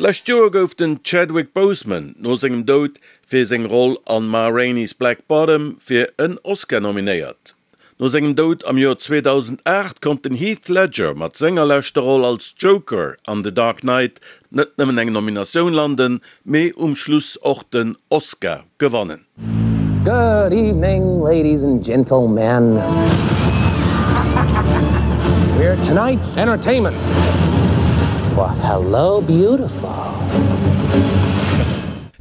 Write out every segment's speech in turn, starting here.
D'lescht Joer gouf den Chadwick Boseman no sengem Doud fir seng Roll an Ma Rainey's Black Bottom fir en Oscar nominéiert. No sengem Doud am Joer 2008 konnt den Heath Ledger mat senger leschter Roll als Joker an The Dark Knight net nëmmen eng Nominatioun landen, mee um Schluss och den Oscar gewannen. Good evening, ladies and gentlemen. We're tonight's entertainment. Well, hello, beautiful.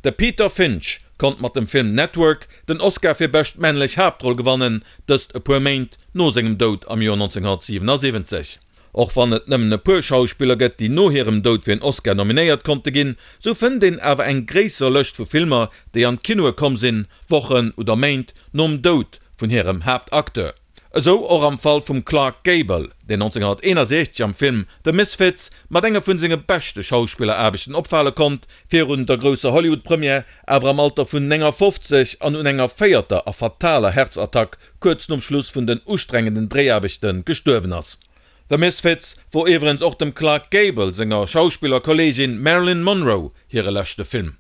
De Peter Finch konnt mat dem Film Network den Oscar fir bescht männlech Haaptroll gewannen, dëst e puer Méint no sengem Doud am Joer 1977. Och wann et nëmmen e puer Schauspiller gëtt, déi no hirem Doud fir en Oscar nominéiert konnte ginn, sou fënnt een awer eng gréisser Lëscht vu Filmer, déi an d'Kinoe komm sinn, Wochen oder Méint nom Doud vun hirem Haaptacteur. Esou och am Fall vum Clark Gable, deen 1961 am Film The Misfits mat enge vun senge beschte Schauspilleraarbechten opfale konnt, virun der grousser Hollywood-Première awer am Alter vun 59 an un enger véierter a fataler Häerzattack kuerz nom Schluss vun den ustrengenden Dréiaarbechte gestuerwen ass. The Misfits wor iwwerens och dem Clark Gable senger Schauspillerkolleegin Marilyn Monroe hire leschte Film.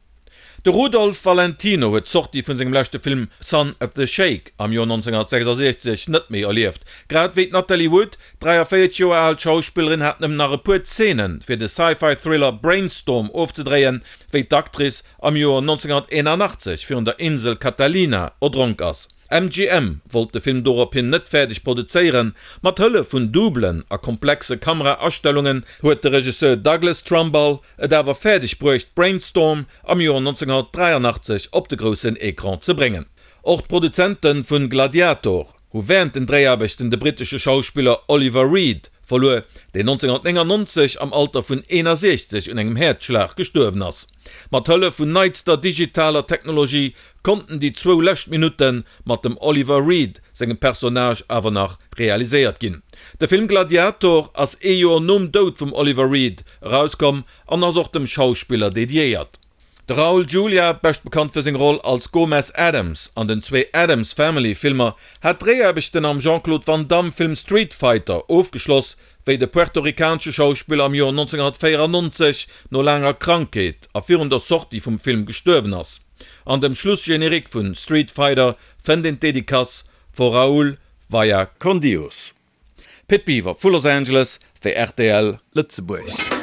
De Rudolph Valentino huet d'Sortie vun sengem leschte Film Son of the Sheik am Joer 1966 net méi erlieft. Grad wéi d'Natalie Wood, d'43 Joer al Schauspillerin hat nëmmen nach e puer Zeene fir de Sci-Fi-Thriller Brainstorm ofzedréien, wéi d'Actrice am Joer 1981 virun der Insel Catalina erdronk ass. MGM wollt de Film dorophin net fäerdeg produzéieren. Mat Hëllef vun Doublen a komplexe Kamera-Astellungen huet de Regisseur Douglas Trumbull et awer fäerdeg bruecht, Brainstorm am Joer 1983 op de groussen Ecran ze bréngen. Och d'Produzente vun Gladiator hu wärend den Dréiaarbechten de brittesche Schauspiller Oliver Reed verluer, deen 1999 am Alter vun 61 un engem Häerzschlag gestuerwen ass. Mat Hëllef vun neitster digitaler Technologie konnten déi zwou lescht Minutte mat dem Oliver Reed sengem Personnage awer nach realiséiert ginn. De Film Gladiator ass ee Joer nom Doud vum Oliver Reed erauskomm an ass och dem Schauspiller dediéiert. De Raul Julia, bescht bekannt fir seng Roll als Gomez Addams an den zwee Addams Family Filmer, hat d'Dréiaarbechten am Jean-Claude Van Damme Film Street Fighter ofgeschloss, wéi de puerto-ricanesche Schauspiller am Joer 1994 no laanger Krankheet a virun der Sortie vum Film gestuerwen ass. An dem Schlussgenerique vun Street Fighter fënnt een d'Dedicace For Raúl Vaya con Dios. Pit Biwer vu Los Angeles fir rtl Lëtzebuerg.